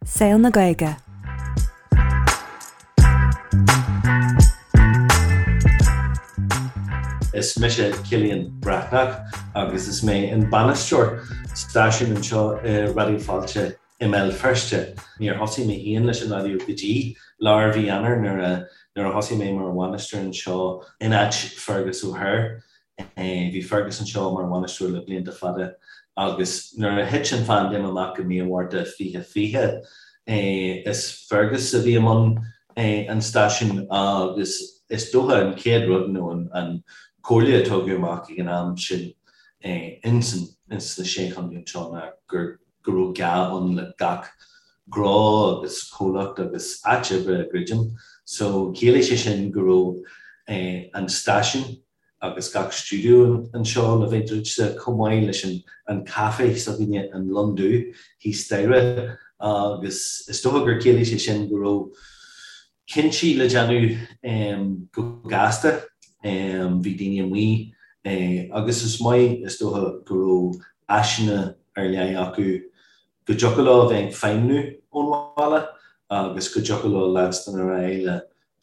Saol na Gaeilge. Is mise Cillian Breathnach agus is mé an bainisteoir stáisiúin anseo i Raidió Fáilte i mBéal Feirste. Níor thosaigh mé féin leis an raidió go dtí lár mhí Eanáir nuair a nuair a thosaigh mé mar bhainisteoir anseo in áit Fergus O'Hare. Bhí Fergus anseo mar bhainisteoir le blianta fada agus nuair a thit an phaindéim amach i mí an Mhárta 2020, is Fergus a bhí i mbun an stáisiúin agus is dócha an chéad rud nó an comhairle a tugadh amach ag an am sin ins na Sé Chontae anseo ná gur go raibh gá ann le gach gnó agus comhlacht agus áit oibre a dhruidim. So chiallaigh sé sin go raibh an stáisiún agus gach stiúideo anseo le bheith druidte, chomh maith leis an caifé s'againne, an Lon Dubh, thíos staighre agus is dócha gur chiallaigh sé sin go raibh cinntí le déanamh go gasta. Bhí daoine amuigh agus is maith is dócha go raibh áiseanna ar leith acu go dtiocfadh leo a bheith ag feidhmniú ón bhaile agus go dtiocfadh leo leanstan ar aghaidh le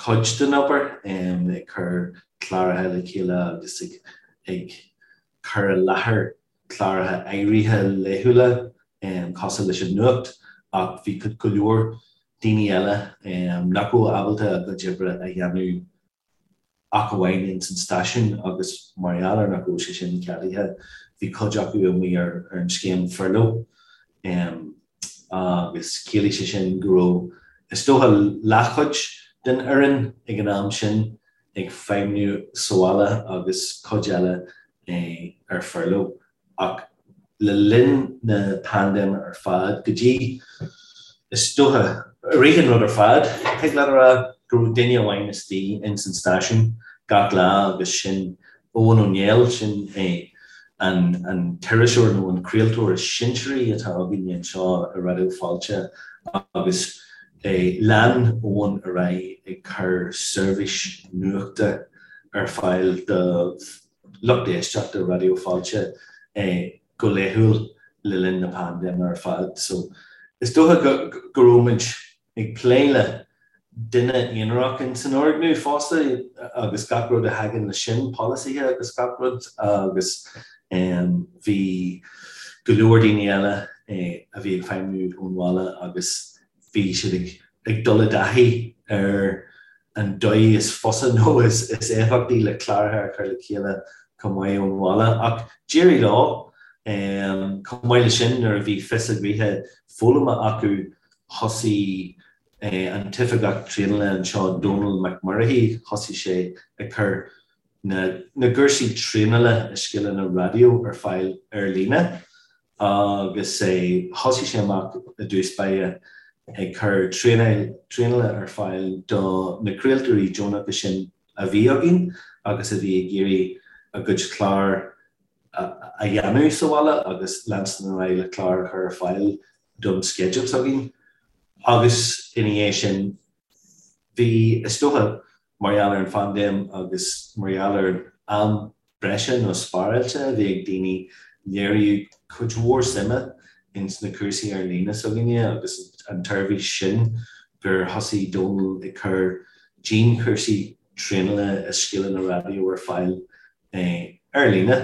cuid den obair, ag cur cláracha le chéile agus ag cur i láthair cláracha áirithe laethúla cosúil leis an nuacht ach bhí go leor daoine eile nach raibh ábalta a gcuid oibre a dhéanamh ach amháin ins an stáisiún agus mar gheall ar nach raibh sé sin ceadaithe bhí cuid acu amuigh ar an scéim furlough agus chiallaigh sé sin go raibh is dócha leathchuid den fhoireann ag an am sin ag feidhmniú sa bhaile agus cuid eile ar furlough. Ach le linn na paindéime ar fad, go dtí, is dócha, i rith an rud ar fad, thig leat a rá go raibh duine amháin istigh ins an stáisiún gach lá agus sin Eoghan Ó Néill, sin é an t-iriseoir nó an craoltóir is sinsearaí atá againne anseo i Raidió Fáilte agus lean Eoghan ar aghaidh ag cur seirbhís nuachta ar fáil do lucht éisteachta Raidió Fáilte go laethúil le linn na paindéime ar fad. So is dócha go raibh muid ag plé le duine aonarach in san fhoirgneamh fosta agus gach rud a thagann leis sin, polasaithe agus gach rud agus bhí go leor daoine eile a bhí ag feidhmiú ón bhaile agus bhí siad ag dul i dtaithí ar an dóigh is fusa nó is éifeachtaí le cláracha a chur le chéile chomh maith ón bhaile. Ach d'éirigh leo. Chomh maith leis sin, nuair a bhí fios a gnoithe foghlamtha acu, thosaigh an t-oifigeach traenála anseo, Dónal Mac Muircheartaigh, thosaigh sé ag cur na gcúrsaí traenála i scileanna raidió ar fáil ar líne agus thosaigh sé amach i dtús báire ag cur traenála ar fáil do na craoltóirí deonacha sin a bhí againn agus a bhí ag iarraidh a gcuid clár a dhéanamh sa bhaile agus leanstan ar aghaidh le clár a chur ar fáil don sceideal s'againn agus ina dhiaidh sin bhí, is dócha, mar gheall ar an phaindéim agus mar gheall ar an am breise nó spáráilte a bhí ag daoine, léiríodh cuid mhór suime ins na cúrsaí ar líne s'againne agus an tseirbhís sin gur thosaigh Dónal ag cur dianchúrsaí traenála i scileanna raidió ar fáil ar líne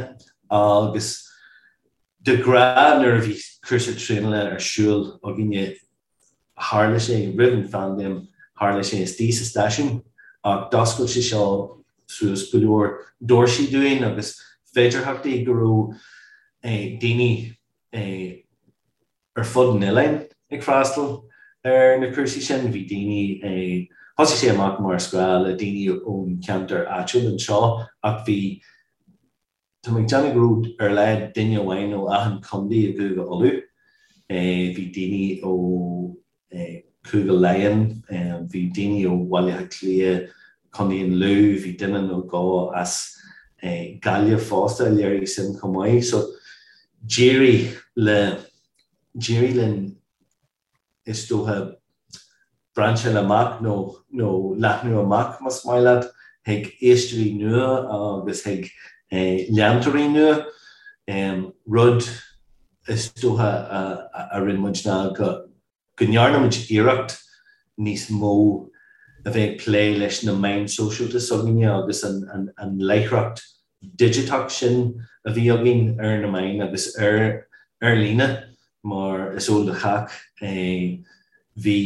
agus de ghnáth nuair a bhí cúrsa traenála ar siúl againne tharla sé roimh an phaindéim, tharla sé istigh sa stáisiún ach d'oscail sé seo suas go leor doirsí dúinn agus féidearthachtaí go raibh daoine ar fud an oileáin ag freastal ar na cúrsaí sin. Bhí daoine, thosaigh sé amach mar is gnáth le daoine ón cheantar áitiúil anseo ach bhí, Tá mé ag déanamh go raibh ar a laghad duine amháin ó achan chontae i gCúige Uladh. Bhí daoine ó Chúige Laighean, bhí daoine ó Bhaile Átha Cliath, Contae an Lú, bhí duine nó dhó as Gaillimh fosta a léirigh suim chomh maith. So d'éirigh le, d'éirigh linn is dócha, brainseáil amach nó nó leathnú amach, más maith leat, chuig éisteoirí nua agus chuig leantóirí nua. Rud is dócha a rinne muid ná go. go ndearna muid iarracht níos mó a bheith ag plé leis na meáin sóisialta s'againne agus an láithreacht digiteach sin a bhí againn ar na meáin agus ar ar líne mar is eol do chách bhí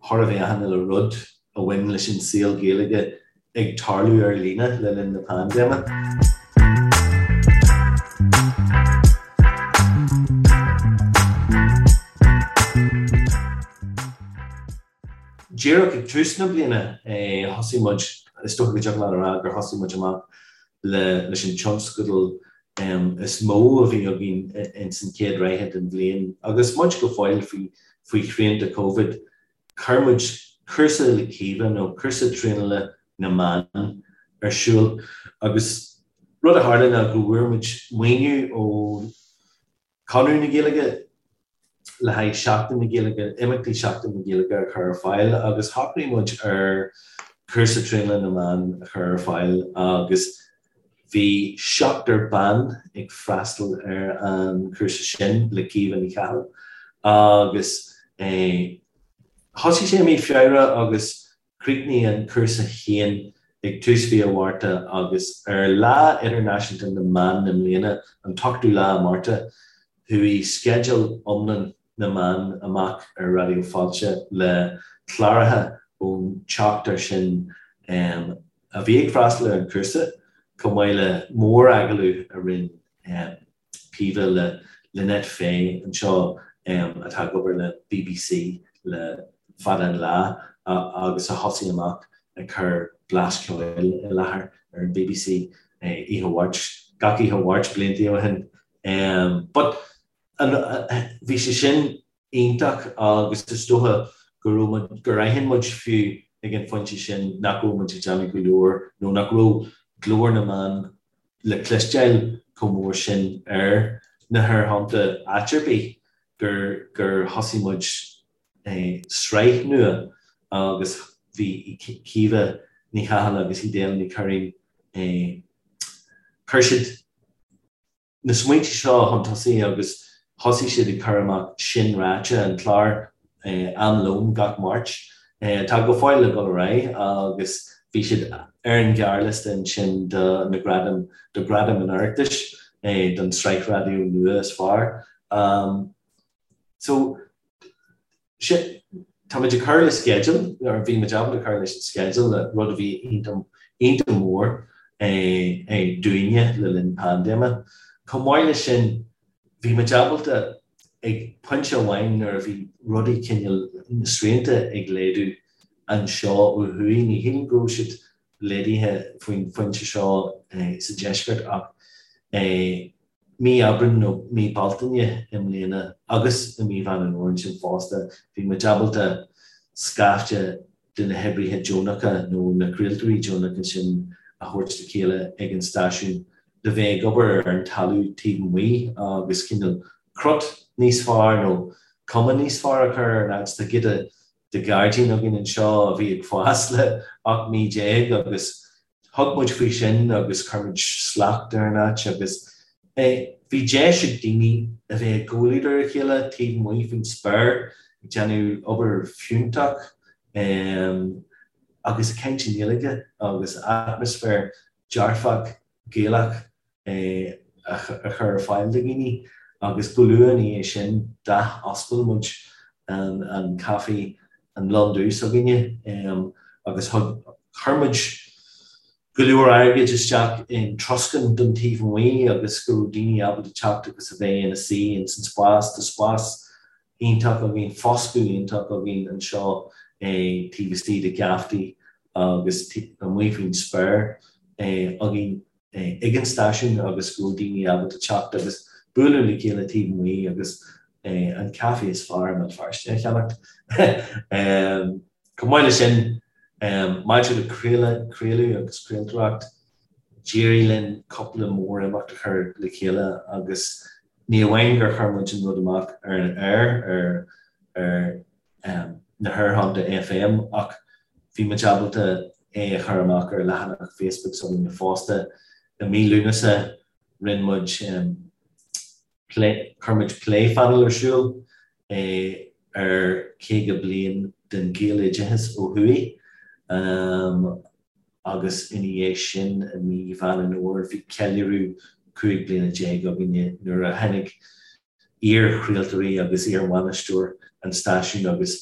chóir a bheith achan uile rud a bhain leis an saol Gaeilge ag tarlú ar líne le linn na paindéime. Díreach ag tús na bliana thosaigh muid, is dócha go dtiocfadh leat a rá gur thosaigh muid amach leis an tionscadal is mó a bhí againn ins an chéad ráithe den bhliain agus muid go fóill faoi shrianta Covid. Chuir muid cúrsa le Caoimhe nó cúrsa traenála na mban ar siúl agus rud a tharla ná go bhfuair muid maoiniú ó Conradh na Gaeilge le haghaidh Seachtain na Gaeilge, imeachtaí Seachtain na Gaeilge a chur ar fáil agus shocraigh muid ar cúrsa traenála na mban a chur ar fáil agus bhí seachtar ban ag freastal ar an chúrsa sin le Caoimhe Ní Chathail agus thosaigh sé i mí Feabhra agus Chríochnaigh an cúrsa féin ag tús mhí an Mhárta agus ar Lá Idirnáisiúnta na mBan i mbliana, an t-ochtú lá Márta, chuaigh sceideal iomlán na mban amach ar Raidió Fáilte le cláracha ón tseachtar sin a bhí ag freastal ar an chúrsa, chomh maith le mór-agallamh a rinne Caoimhe le Lynette Fay anseo atá ag obair le bbc le fada an lá agus a thosaigh amach ag cur Blas Ceoil i láthair ar an bbc oíche Mháirt, gach oíche Mháirt blianta ó shin. But bhí sé sin iontach agus is dócha go raibh muid, gur aithin muid fiú ag an phointe sin nach raibh muid ag déanamh go leor nó nach raibh glór na mban le cloisteáil chomh mór sin ar na haerthonnta áit ar bith gur gur thosaigh muid sraith nua agus bhí Caoimhe Ní Chathail agus Edel Ní Churraoin chuir siad na smaointe seo chun tosaigh agus thosaigh siad ag cur amach Sin Ráite, an clár am lóin gach Máirt, atá go fóill ag dul ar aghaidh agus bhí siad ar an ghearrliosta ansin do na gradaim, do Ghradaim an Oireachtais don tsraith raidió nua is fearr. So, tá muid ag cur le sceideal, or bhí muid ábalta cur leis an sceideal, rud a bhí iontach mór dúinne le linn paindéime. Chomh maith leis sin, bhí muid ábalta ag pointe amháin nuair a bhí rudaí cineál, na srianta ag laghdú anseo ó thuaidh, ní shílim go raibh siad laghdaithe faoin phointe seo sa deisceart ach mí Aibreáin nó mí Bealtaine i mbliana agus i mí Mheán an Fhómhair ansin fosta, bhí muid ábalta scaifte de na hoibrithe deonacha nó na craoltóirí deonacha sin a thabhairt le chéile ag an stáisiún le bheith ag obair ar an talamh taobh amuigh agus cineál crot níos fearr nó cuma níos fearr a chur ar an áit. Tá giota de ghairdín againn anseo a bhí ag fás le 18 mí agus thug muid faoi sin agus chuir muid slacht ar an áit agus bhí deis ag daoine a bheith i gcomhluadar a chéile taobh amuigh faoin spéir ag déanamh obair fiúntach agus ag caint i nGaeilge agus atmaisféar dearfach Gaelach a chur ar fáil do dhaoine agus go luath ina dhiaidh sin d'athoscail muid an caife an Lon Dubh s'againne agus chuir muid go leor airgid isteach in troscán don taobh amuigh agus go raibh daoine ábalta teacht agus a bheith ina suí ins an spás. Tá spás iontach againn, foscadh iontach againn anseo taobh istigh de gheaftaí agus amuigh faoin spéir againn ag an stáisiún agus go raibh daoine ábalta teacht agus bualadh le chéile taobh amuigh agus an caife is fearr i mBéal Feirste a cheannacht. Chomh maith leis sin, maidir le craoladh, craoladh agus craoltóireacht, d'éirigh linn cúpla mór-imeacht a chur le chéile agus ní amháin gur chuir muid an rud amach ar an aer ar ar na haerthonnta FM ach bhí muid ábalta é a chur amach ar leathanach Facebook s'againne fosta. I mí Lúnasa rinne muid plé, chuir muid plé phainéal ar siúl. ar 50 bliain den Ghaeloideachas ó thuaidh agus ina dhiaidh sin i mí Mheán an Fhómhair bhí ceiliúradh 15 bliana againne nuair a tháinig iar-chraoltóirí agus iar-bhainisteoir an stáisiúin agus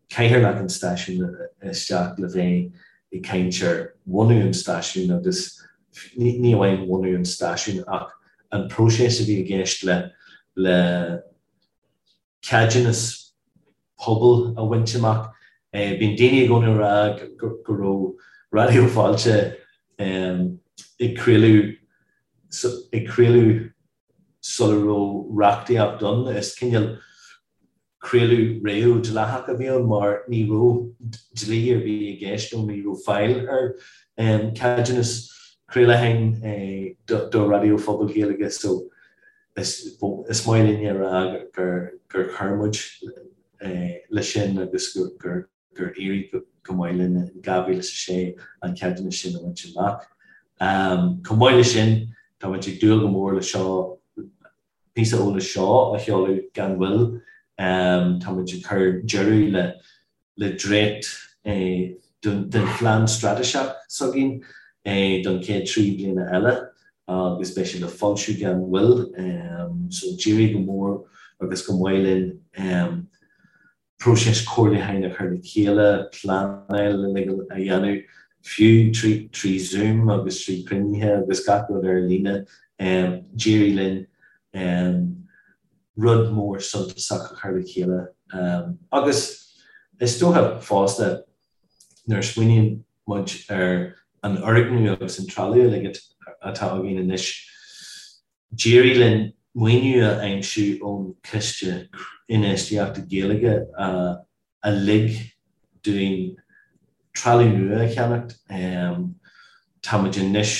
cathaoirleach an stáisiúin isteach le bheith ag caint ar bhunú an stáisiúin agus ní amháin bhunú an stáisiúin ach an próiseas a bhí i gceist le le ceadúnas pobail a bhaint amach. Bíonn daoine i gcónaí ag rá go raibh Raidió Fáilte ag craoladh ag craoladh sula raibh reachtaíocht ann. Is cineál craoladh réamh-dleathach a bhí ann mar ní raibh dlí ar bith i gceist nó ní raibh fáil ar ceadúnas craolacháin do raidió phobail Ghaeilge so Is maith linn a rá gur chuir muid leis sin agus gur éirigh go maith linn in 2006 an ceadúnas sin a bhaint amach. Chomh maith leis sin, tá muid ag dúil go mór le seo, píosa eolais seo a sheoladh gan mhoill. Tá muid ag cur deireadh le le dréacht den phlean straitéiseach s'againn don chéad 3 bliana eile agus beidh sé le foilsiú gan mhoill. So d'éirigh go mór agus go maith linn próiseas comhairliúcháin a chur le chéile, pleanáil uilig a dhéanamh, fiú trí Zoom agus trí chruinnithe agus gach rud ar líne. D'éirigh linn rud mór suntasach a chur le chéile agus is dócha fosta nuair a smaoiníonn muid ar an fhoirgneamh agus an trealamh uilig atá againn anois, d'éirigh linn maoiniú a aimsiú ón Chiste Infheistíochta Gaeilge a a lig dúinn trealamh nua a cheannacht. Tá muid anois,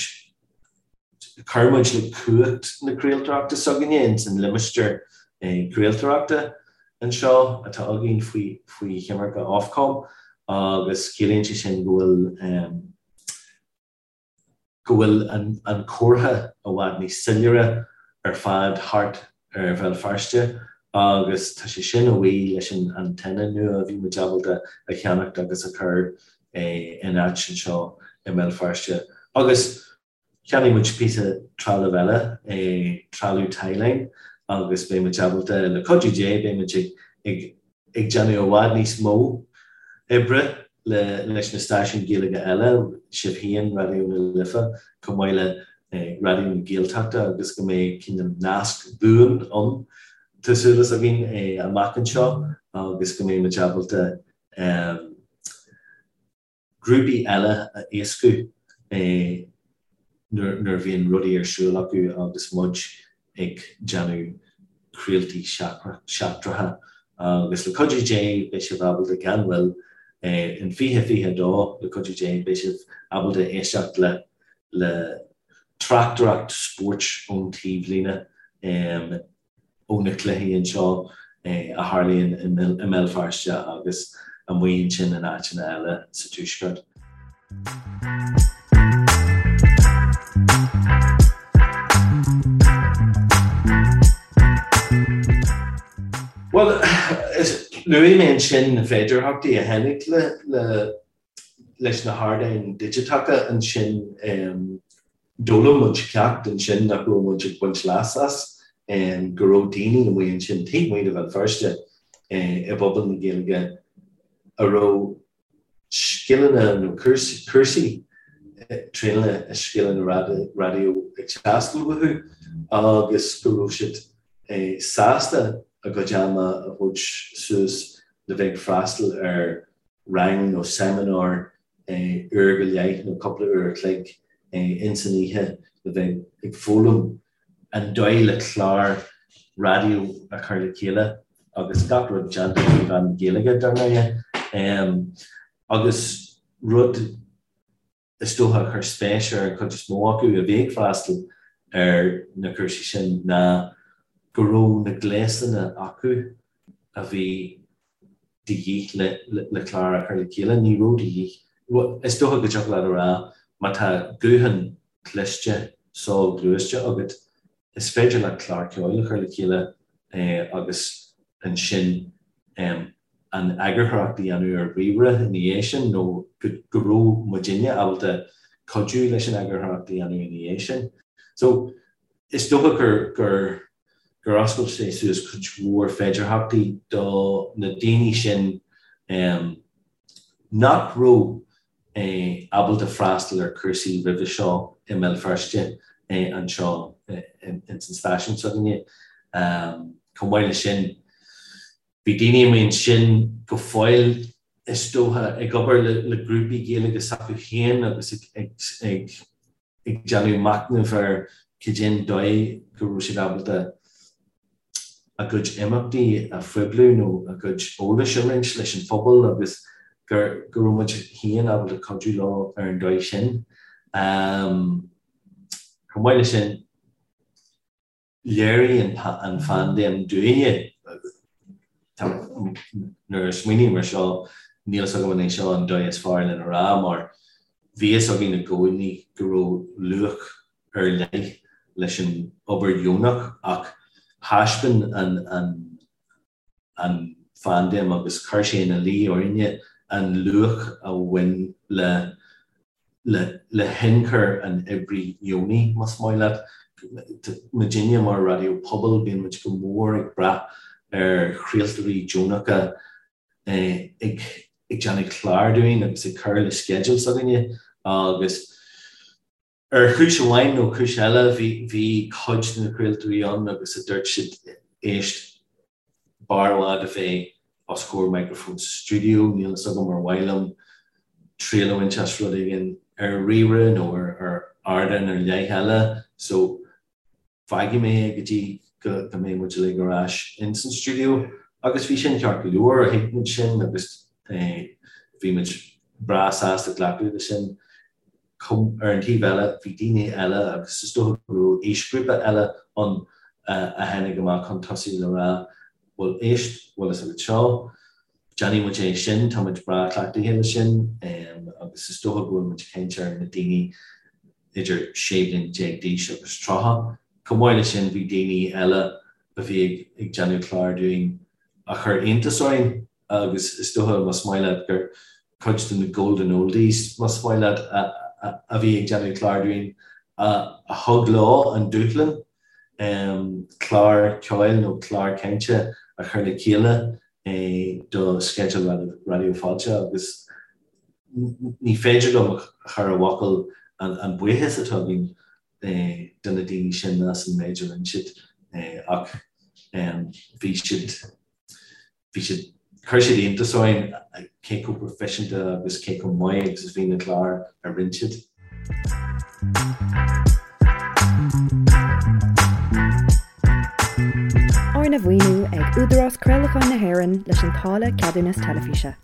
chuir muid le cumhacht na craoltóireachta s'againne ins an limistéar craoltóireachta anseo atá againn faoi faoi choimirce Ofcom agus ciallaíonn sé sin go bhfuil go bhfuil an comhartha i bhfad níos soiléire ar fad thart ar Bhéal Feirste agus tá sé sin a bhuí leis an antenna nua a bhí muid ábalta a cheannacht agus a chur in áit anseo i mBéal Feirste. Agus cheannaigh muid píosa trealamh eile, trealamh tie-line agus beidh muid ábalta, le cuidiú Dé, beidh muid ag ag déanamh i bhfad níos mó oibre leis na stáisiúin Ghaeilge eile, sibh féin, Raidió na Life, chomh maith le Raidió na Gaeltachta agus go mbeidh cineál nasc buan ann, tá súil againn, amach anseo agus go mbeidh muid ábalta grúpaí eile a éascú nuair a bhíonn rudaí ar siúl acu agus muid ag déanamh craoltaí seachtracha. Agus le cuidiú Dé beidh sibh ábalta gan mhoill, in 2022, le cuidiú Dé beidh sibh ábalta éisteacht le le tráchtaireacht spóirt ón taobhlíne. ó na cluichí anseo a tharlaíonn i mBéal Feirste agus amuigh ansin in áiteanna eile sa Tuaisceart. Bhuel, luaigh mé ansin na féidearthachtaí a tháinig le leis na hardáin digiteacha ansin d'fhoghlaim muid ceacht ansin nach raibh muid ag baint leas as, go raibh daoine amuigh ansin taobh amuigh de Bhéal Feirste i bpobal na Gaeilge a raibh scileanna nó cúrsaí traenála i scileanna raidió ag teastáil uathu agus go raibh siad sásta a gcuid ama a thabhairt suas le bheith ag freastal ar rang nó seimineár uair go leith nó cúpla uair a chloig ins an oíche le bheith ag foghlaim an dóigh le clár raidió a chur le chéile agus gach rud déanta trí mheán na Gaeilge, dar ndóighe. Agus rud is dócha a chuir spéis ar an chuid is mó acu a bhí ag freastal ar na cúrsaí sin ná go raibh na gléasanna acu a bhí de dhíth le clár a chur le chéile. Ní raibh de dhíth, is dócha go dtiocfadh leat a rá má tá guthán cliste soghluaiste agat, is féidir leat clár ceoil a chur le chéile agus ansin. An eagarthóireacht a dhéanamh ar ríomhaire ina dhiaidh sin nó go raibh muidinne ábalta cuidiú leis an eagarthóireacht a dhéanamh ina dhiaidh sin. So, is dócha gur gur gur oscail sé suas cuid mhór féidearthachtaí do na daoine sin nach raibh ábalta freastal ar chúrsaí roimhe seo i mBéal Feirste anseo ins an stáisiún s'againne. Chomh maith leis sin, bhí daoine amuigh ansin go fóill, is dócha, ag obair le grúpaí Gaeilge s'acu féin agus ag ag déanamh machnaimh ar cad é an dóigh go raibh siad ábalta a gcuid imeachtaí a phoibliú nó a gcuid eolais a roinnt leis an phobal agus gur go raibh muid féin ábalta cuidiú leo ar an dóigh sin. Chomh maith leis sin, Léirigh an phaindéim dúinne, nuair a smaoiním ar seo, níl fhios agam an é seo an dóigh is fearr lena rá, mar bhí fhios againn i gcónaí go raibh luach ar leith leis an obair dheonach ach thaispeáin an an phaindéim agus chuir sé ina luí orainne an luach a bhain le le hionchur an oibrí dheonaigh, más maith leat. Muidinne mar raidió pobail, bíonn muid go mór ag brath ar chraoltóirí deonacha ag déanamh clár dúinn agus ag cur le sceideal s'againne agus Ar chúis amháin nó cúis eile, bhí cuid de na craoltóirí ann agus a dúirt siad, éist, b'fhearr i bhfad a bheith os comhair micreafóin sa stiúideo, níl fhios agam ar mhaith liom triail a bhaint as rud éigin ar ríomhaire nó ar ardán ar leith eile, so fágfaidh mé é go dtí go mbeidh muid uilig ar ais ins an stiúideo. Agus bhí sin ceart go leor, thuig muid sin agus bhí muid breá sásta glacadh leis sin. Ar an taobh eile, bhí daoine eile agus is dócha go raibh aoisghrúpa eile ann a tháinig amach chun tosaigh le rá, bhuel éist, bhfuil fhios agat seo, déanfaidh muid é sin, tá muid breá cleachtaithe leis sin agus is dócha go bhfuil muid ag caint ar na daoine idir 16 bliain d'aois agus 30. Chomh maith leis sin bhí daoine eile a bhí ag déanamh clár dúinn a chuir iontas orainn agus is dócha más maith leat gur cuid de na golden oldies más maith leat a bhí ag déanamh clár dúinn a thug leo an dúshlán clár ceoil nó clár cainte a chur le chéile do sceideal Raidió Fáilte agus ní féidir liom a chur i bhfocail an buíochas atá againn do na daoine sin as an méid a rinne siad ach bhí siad, bhí siad, chuir siad iontas orainn cé chomh proifisiúnta agus cé chomh maith agus a bhí na cláir a rinne siad. Arna mhaoiniú ag Údarás Craolacháin na hÉireann leis an táille Ceadúnas Teilifíse.